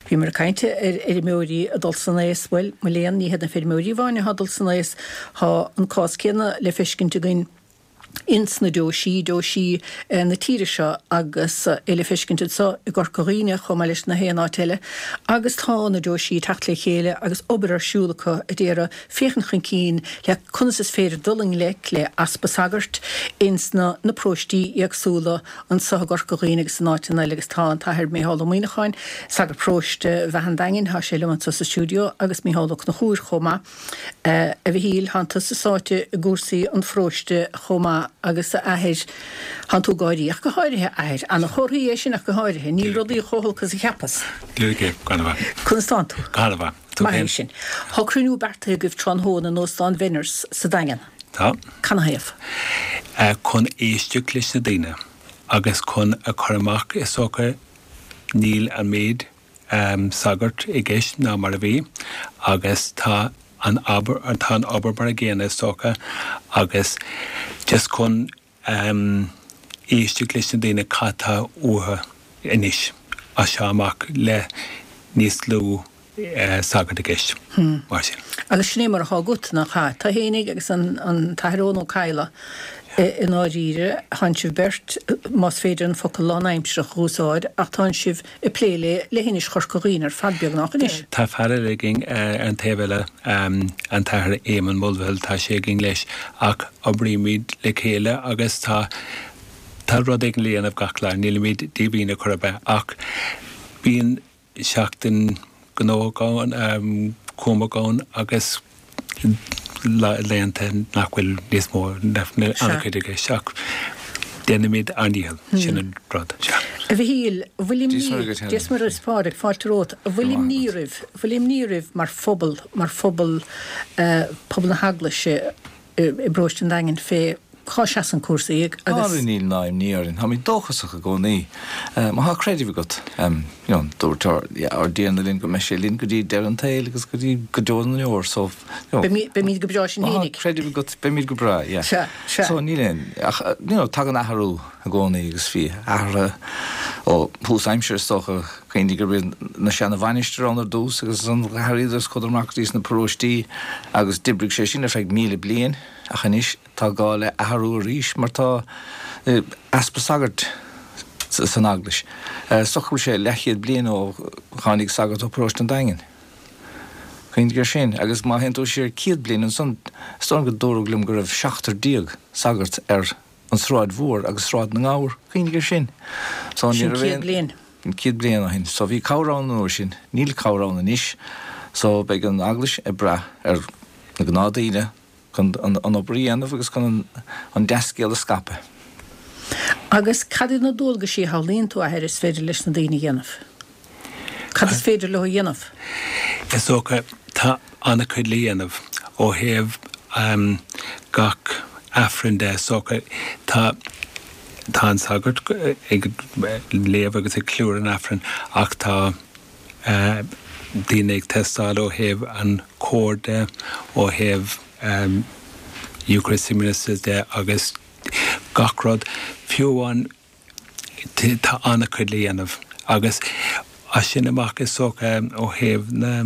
Bhíomar ag caint ar fheirmeoirí ag dul san aos, bhuel, mo léan, ní hiad na feirmeoirí amháin atá ag dul san aos, tá an cás céanna le feiscint againn ins na deoisí, deoisí na tíre seo agus é le feiscint anso i gCorca Dhuibhne chomh maith leis na haon áit eile agus tá na deoisí ag teacht le chéile agus obair ar siúl acu a d'iarraidh féachaint chun cinn le conas is féidir dul i ngleic le easpa sagairt ins na na paróistí éagsúla anso i gCorca Dhuibhne agus in áiteanna eile agus tá an tAthair Micheál Ó Muíneacháin, sagart paróiste Bheatha an Daingin, tá sé liom anso sa stiúideo agus Micheál Ó Conchúir chomh maith. A Mhichíl, thánn tusa sáite i gcúrsaí an pharóiste chomh maith agus a Athair, thánn tú ag gáirí, ach go háirithe, a Athair. Ana-chomhartha é sin ach go háirithe. Níl rudaí chomh holc is a cheapas. Díreach é, go han-mhaith. Conas tánn tú? Go han-mhaith. Tú Maith é féin? sin. Tá cruinniú beartaithe agaibh tráthnóna in Óstán Bhenners sa Daingean. Tá. Canathaobh? Chun éisteacht leis na daoine agus chun a chur amach is dócha níl an méid sagart i gceist ná mar a bhí agus tá an obair, tá an obair mar a gcéanna is dócha agus just chun éisteacht leis na daoine cad tá uathu anois as seo amach le níos lú sagart i gceist mar sin. Agus sin é mar atá agat, nach ea? Tú fhéinig agus an tAthair Eoin Ó Cadhla i ndáiríre, tánn sibh beirt, más féidir an focal lánaimsearach a úsáid, ach tánn sibh ag plé le leithinis Chorca Dhuibhne ar fad beagnach anois. Tá fear eile againn ar an taobh eile, an tAthair Éamonn Mulvihill, tá sé againn leis, ach oibrímid le chéile agus tá tá rud éigin le dhéanamh gach lá, nílimid díomhaoin ar chor ar bith, ach bíonn seachtain gnóthach ann, cúramach ann agus laethanta nach bhfuil níos mó, nach bhfuil an-chuid i gceist ach déanaimid ár ndícheall, sin an rud. Sea. A Mhichíl, an bhfuil imní, Dia is Muire is Pádraig, fáilte romhat, an bhfuil imní oraibh, an bhfuil imní oraibh mar phobal, mar phobal, pobal na hEaglaise i bparóiste an Daingin fé cá seasann cúrsaí agus. Á, níl ná imní orainn. Táimid dóchasach i gcónaí. Má thá creideamh agat, you know, dúirt ár, yeah, ár dTiarna linn go mbeidh sé linn go dtí deireadh an tsaoil agus go dtí go deo na ndeor, so, you know. Beimid go breá sinn Má thá creideamh agat, beimid go breá, yeah. Sea, sea. So níl aon, ach, you know, tagann athrú i gcónaí agus bhí athruithe ó thús aimsire is dócha, cuimhnigh gurb iad na seana mhainistir ann ar dtús agus ansan d'athraíodar is chuadar amach go dtí sna paróistí agus d'oibrigh sé sin ar feadh 1,000 bliain ach anois, Tá gá le athrú arís mar tá easpa sagart san Eaglais. Is dócha go bhfuil sé leathchéad bliain ó tháinig sagart ó Paróiste an Daingin. Cuimhnigh air sin. Agus má théann tú siar 100 bliain ansan, is dóigh liom go dúradh liom go raibh 17 sagart ar an Sráid Mhór agus Sráid na nGabhar. Cuimhnigh air sin. So ní raibh aon. Sin 100 bliain. 100 bliain ó shin. So bhí cabhair ann an uair sin. Níl cabhair ann anois. So beidh an Eaglais ag brath ar na gnáthdaoine chun an obair a dhéanamh agus chun an dea-scéal a scaipeadh. Agus cad iad na dualgaisí a shamhlaíonn tú, a Athair, is féidir leis na daoine a dhéanamh? Cad is féidir leo a dhéanamh? Is dócha, tá an-chuid le dhéanamh ó thaobh gach Aifreann de, is dócha. Tá tá an sagart ag léamh agus ag ceiliúradh an Aifrinn ach tá daoine ag teastáil ó thaobh an chóir de, ó thaobh Eucharistic Ministers de agus gach rud. Fiú amháin tá an-chuid le dhéanamh agus as sin amach is dócha ó thaobh na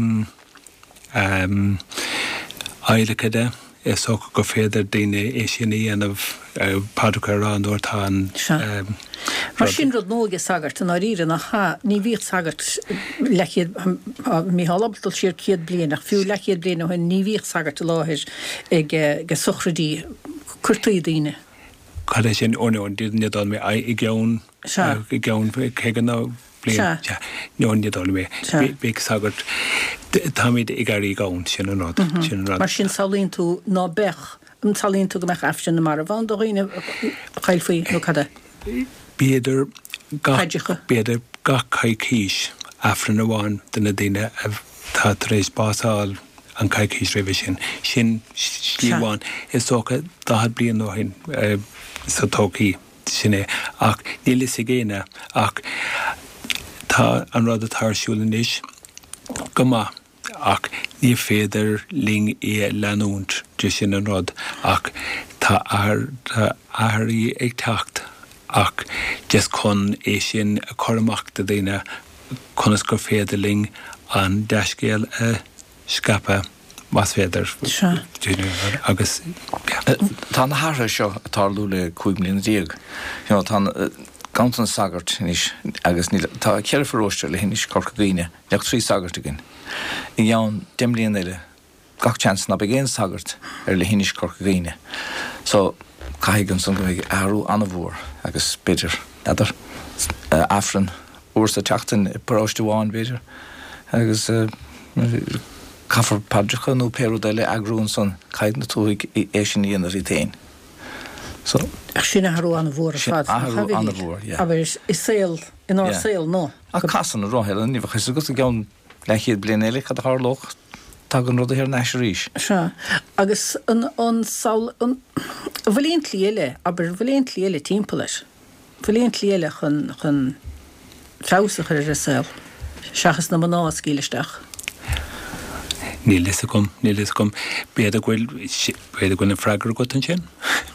adhlactha de, is dócha gur féidir daoine é sin a dhéanamh, paidreacha a rá nuair atá an Sea. Mar sin rud nua aige sagart, i ndáiríre, nach ea? Ní bhíodh sagart leathchéad, tá Mícheál ábalta dul siar 100 bliain, ach fiú leathchéad bliain ó shin ní bhíodh sagart i láthair ag sochraidí, cuirtí daoine. Cad é sin? Ó no, ní dóigh liom é. I gceann, i gceann 50 nó bliain. Sea. No, ní dóigh liom é. Bheadh sagart, táimid ag éirí gann, sin an rud, sin an rud. Mar sin samhlaíonn tú ná beadh, an samhlaíonn tú go mbeadh Aifreann na marbh ann do dhaoine a chaillfí nó cad é? B'fhéidir gach, b'fhéidir gach coicís Aifreann amháin do na daoine atá tar éis bás a fháil an coicís roimhe sin. Sin slí amháin. Is dócha 40 bliain ó shin sa todhchaí. Sin é. Ach níl fhios ag éinne. Ach tá an rud atá ar siúl anois go maith ach ní féidir linn é a leanúint de sin an rud. Ach tá athruithe ag teacht ach just chun é sin a chur amach do dhaoine. conas gur féidir linn an dea-scéal a scaipeadh, más féidir. Sea. Agus, yeah. Tá na hathruithe seo ag tarlú le 15 mbliana. You know, tá an ganntanas sagart anois agus níl, tá ceithre pharóiste ar leithinis Chorca Dhuibhne, níl ach 3 sagart againn. I gceann 10 mbliana eile, gach seans ná beidh aon sagart ar leithinis Chorca Dhuibhne. So, caithfidh ansan go mbeidh athrú an-mhór agus b'fhéidir, n'fheadar, Aifreann uair sa tseachtain i bparóiste amháin b'fhéidir agus caithfear paidreacha nó pé rud eile a eagrú ansan, caithfidh na tuathaigh é sin a dhéanamh iad féin. So. Ach sin athrú an-mhór ar fad, nach ea, a Mhichíl? Sin athrú an-mhór, yeah. Abair, i saol, inár saol nua. Ach casann an roth, ní bheadh fhios agat i gceann leathchéad bliain eile cad a tharlódh, tagann rudaí thar n-ais arís. Sea. Agus an, an samhail, an, an bhfuil aon tslí eile, abair, an bhfuil aon tslí eile timpeall air? An bhfuil aon tslí eile chun, chun feabhas a chur ar an saol, seachas na mná a scaoileadh isteach? Níl fhios agam, níl fhios agam. B'fhéidir go bhfuil, b'fhéidir go bhfuil an freagra agat ansin?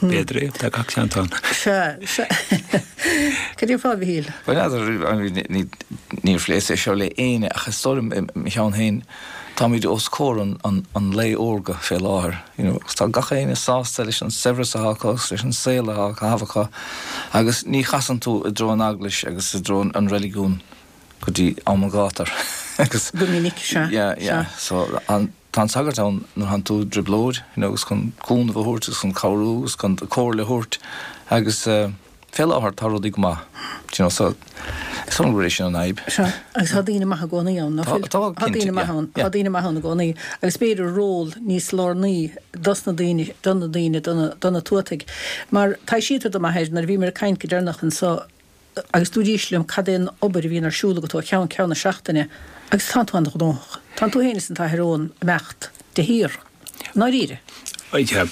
B'fhéidir é, tá gach seans ann. Sea, sea. Cad é fá, a Mhichíl? Bhuel, n'fheadar, níor phléas é seo le éinne ach is dóigh liom i mo cheann féin, táimid os comhair an lae órga fé láthair, you know, agus tá gach éinne sásta leis an saibhreas atá acu agus leis an saol atá á chaitheamh acu agus ní chasann tú i dtreo an eaglais agus i dtreo an reiligiún go dtí am an ghátair agus Go minic, sea, yeah, yeah, sea. So an, tá an sagart ann nuair thánn tú i dtrioblóid, you know, agus chun cúnamh a thabhairt agus chun cabhrú agus chun comhairle a thabhairt agus eh, fé láthair tá rudaí go maith, do you know, so is dóigh liom gurb é sin an fhadhb. Sea, agus tá daoine maithe i gcónaí ann, ná fuil? Tá, Tá cinnte, daoine maithe yeah, ann, yeah. tá daoine maithe ann i gcónaí agus b'fhéidir ról níos lárnaí dos na daoine, do na daoine, do na, do na tuataigh. Mar taibhsítear dom, a athair, nuair a bhíomar ag caint go deireanach anso, Agus dúraís liom cad é an obair a bhíonn ar siúl agat ó cheann ceann na seachtaine agus tánn tú an-ghnóthach. Tánn tú féin is an tAthair Eoin ag imeacht de shíor. I ndáiríre. Sea,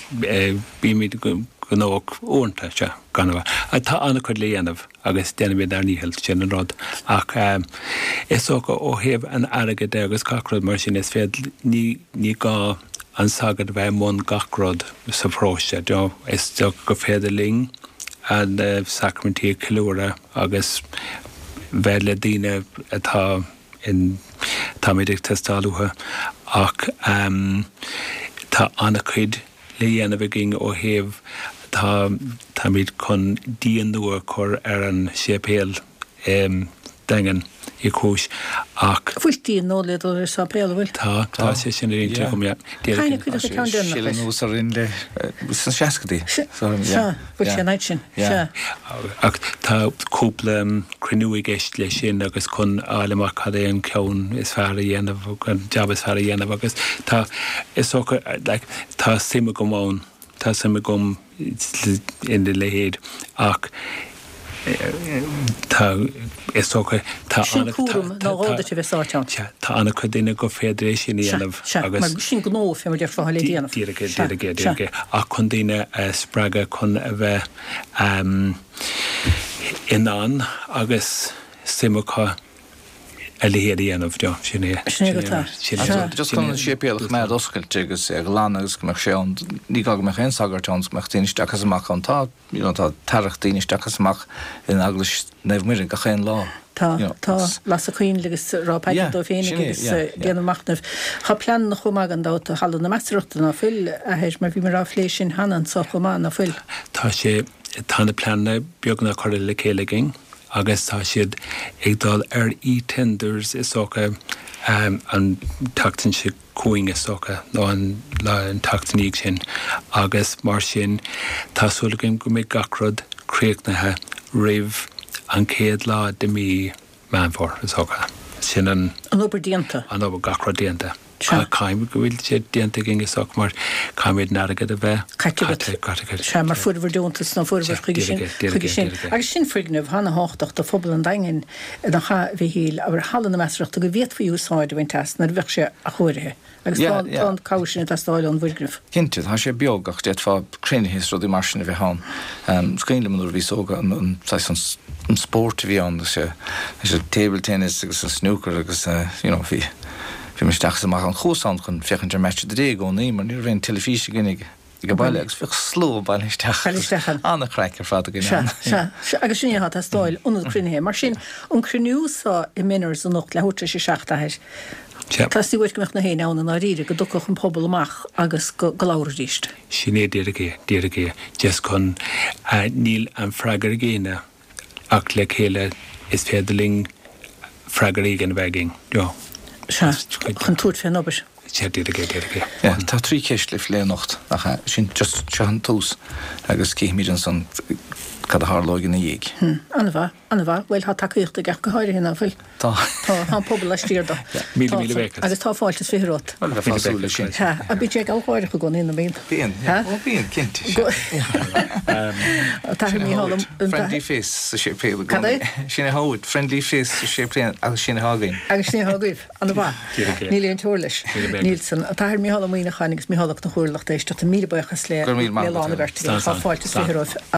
bímid gnóthach uaireanta, sea, gan amhras. Tá an-chuid le dhéanamh agus déanaimid ár ndícheall, sin an rud. Ach is dócha ó thaobh an airgid de agus gach rud mar sin, is féidir, ní, ní gá an sagart a bheith i mbun gach rud sa pharóiste. Is dócha gur féidir linn na sacraimintí a cheiliúradh agus bheith le daoine atá in, táimid ag teastáil uathu ach tá an-chuid le dhéanamh againn ó thaobh, tá, táimid chun díon nua a chur ar an séipéal i Daingean Uí Chúis ach. Bhfuil díon nua le dul ar an sáipéal, an bhfuil? Tá, tá sé sin ar intinn agam, yeah. Cathain a cuireadh an ceann deireanach air? Sileadh anuas orainn le, sna seascadaí. Sea, bhfuil sé an fhaid sin, sea. Ach tá cúpla cruinniú i gceist leis sin agus chun a fháil amach cad é an ceann is fearr a dhéanamh, an jab is fearr a dhéanamh agus tá, is dócha, like, tá suim agam ann, tá suim agam ina leithéid ach tá, is dócha, tá Sin cúram nó dhó duit a bheith sáite ann. Sea, tá an-chuid daoine gur féidir é sin a dhéanamh agus. Mar sin gnó, fé mar déarfá, le déanamh. Díreach é, díreach é, díreach é. Ach chun daoine a spreagadh chun a bheith in ann agus suim acu a leithéid a dhéanamh, you know, sin é. Sin é go tá. Sin é. Just chun an séipéal a choimeád oscailte agus é a ghlanadh agus go mbeadh sé ann, ní gá go mbeadh aon sagart ann, go mbeadh daoine isteach is amach ann. Tá, you know, tá tarrac daoine isteach is amach in Eaglais Naomh Muire gach aon lá. Tá, you know, tá, lasadh coinnle agus rá paidir dóibh féinig agus déanamh machnaimh. Tá pleananna chomh maith gan dabht do Halla na Measarthachta, ná fuil, a Athair, mar bhíomar á phlé sin cheana anso chomh maith, ná fuil? Tá sé, tá na pleananna beagnach curtha le chéile againn. agus tá siad ag dul ar e-tenders is dócha an tseachtain seo chugainn is dócha nó an lá an tseachtain ina dhiaidh sin agus mar sin tá súil againn go mbeidh gach rud críochnaithe roimh an chéad lá de mí Meán Fómhair is dócha. Sin an. An obair déanta. An obair, gach rud déanta. Sea. Caithfidh go bhfuil sé déanta againn is dócha mar caithfimid an airgead a bheith Caite agat. caite, caite. Sea, mar fuaireabhair deontas nó fuaireabhair chuige sin, chuige sin. Agus sin foirgneamh ana-thábhachtach do phobal an Daingin, nach ea, a Mhichíl, abair, Halla na Measarthachta go bhféadfaí úsáid a bhaint as nuair a bheadh sé athchóirithe. Agus tá, tá an cabhair sin ag teastáil ón bhfoirgneamh. Cinnte, tá sé beag ach d'fhéadfá cruinnithe is rudaí mar sin a bheith ann. Is cuimhin liom nuair a bhíos óg an saghas an an spórt a bhí ann, leis an table tennis agus an snooker agus you know bhí bhí mé isteach is amach ann. Chuas ann chun féachaint ar Match of the Day i gcónaí mar ní raibh aon teilifís againn ag. Ag an baile agus bhíodh slua bailithe isteach. Bailithe isteach ann. An-chraic ar fad againn ann. Sea, sea, sea. Agus sin é atá ag teastáil, ionad cruinnithe. Mar sin, an cruinniú so i Menards anocht, leathuair tar éis a 7, a Athair. Sea. Teastaíonn uait go mbeadh na héinne ann i ndáiríre, go dtiocfadh an pobal amach agus go labharfaidís. Sin é díreach é, díreach é. Just chun, níl an freagra ag éinne. Ach le chéile is féidir linn freagra éigin a bheith againn. You know. Sea, chun tabhairt fén obair. Sea, díreach é, díreach é. Yeah, tá trí cheist le plé anocht, nach ea? Sin just, seo an tús agus cífimid ansan cad a tharlóidh ina dhiaidh. Hm, an-mhaith, an-mhaith. Bhuel, tá tacaíocht aige ach go háirithe, ná fuil? Tá. Tá, tá an pobal laistiar de. Míle, míle buíochas. Agus tá fáilte is 20 romhat. Bhuel, bheifeá ag súil leis sin. Sea, ach bíonn sé gealgháireach i gcónaí, nach mbíonn? Bíonn, yeah. Ó, bíonn, cinnte, sea. An tAthair Mícheál Ó. Friendly face sa séipéal i gcónaí. Cad é? Sin é atá uait, friendly face sa séipéal agus sin atá againn. Agus sin é atá agaibh. An-mhaith. Níl aon teora leis. Níl san. An tAthair Mícheál Ó Muíneacháin agus Mícheál Ó Conchúir, lucht éisteachta, míle buíochas le Go raibh míle maith le agat. lán a bheirt agaibh. Tá fáilte is 20 romhaibh.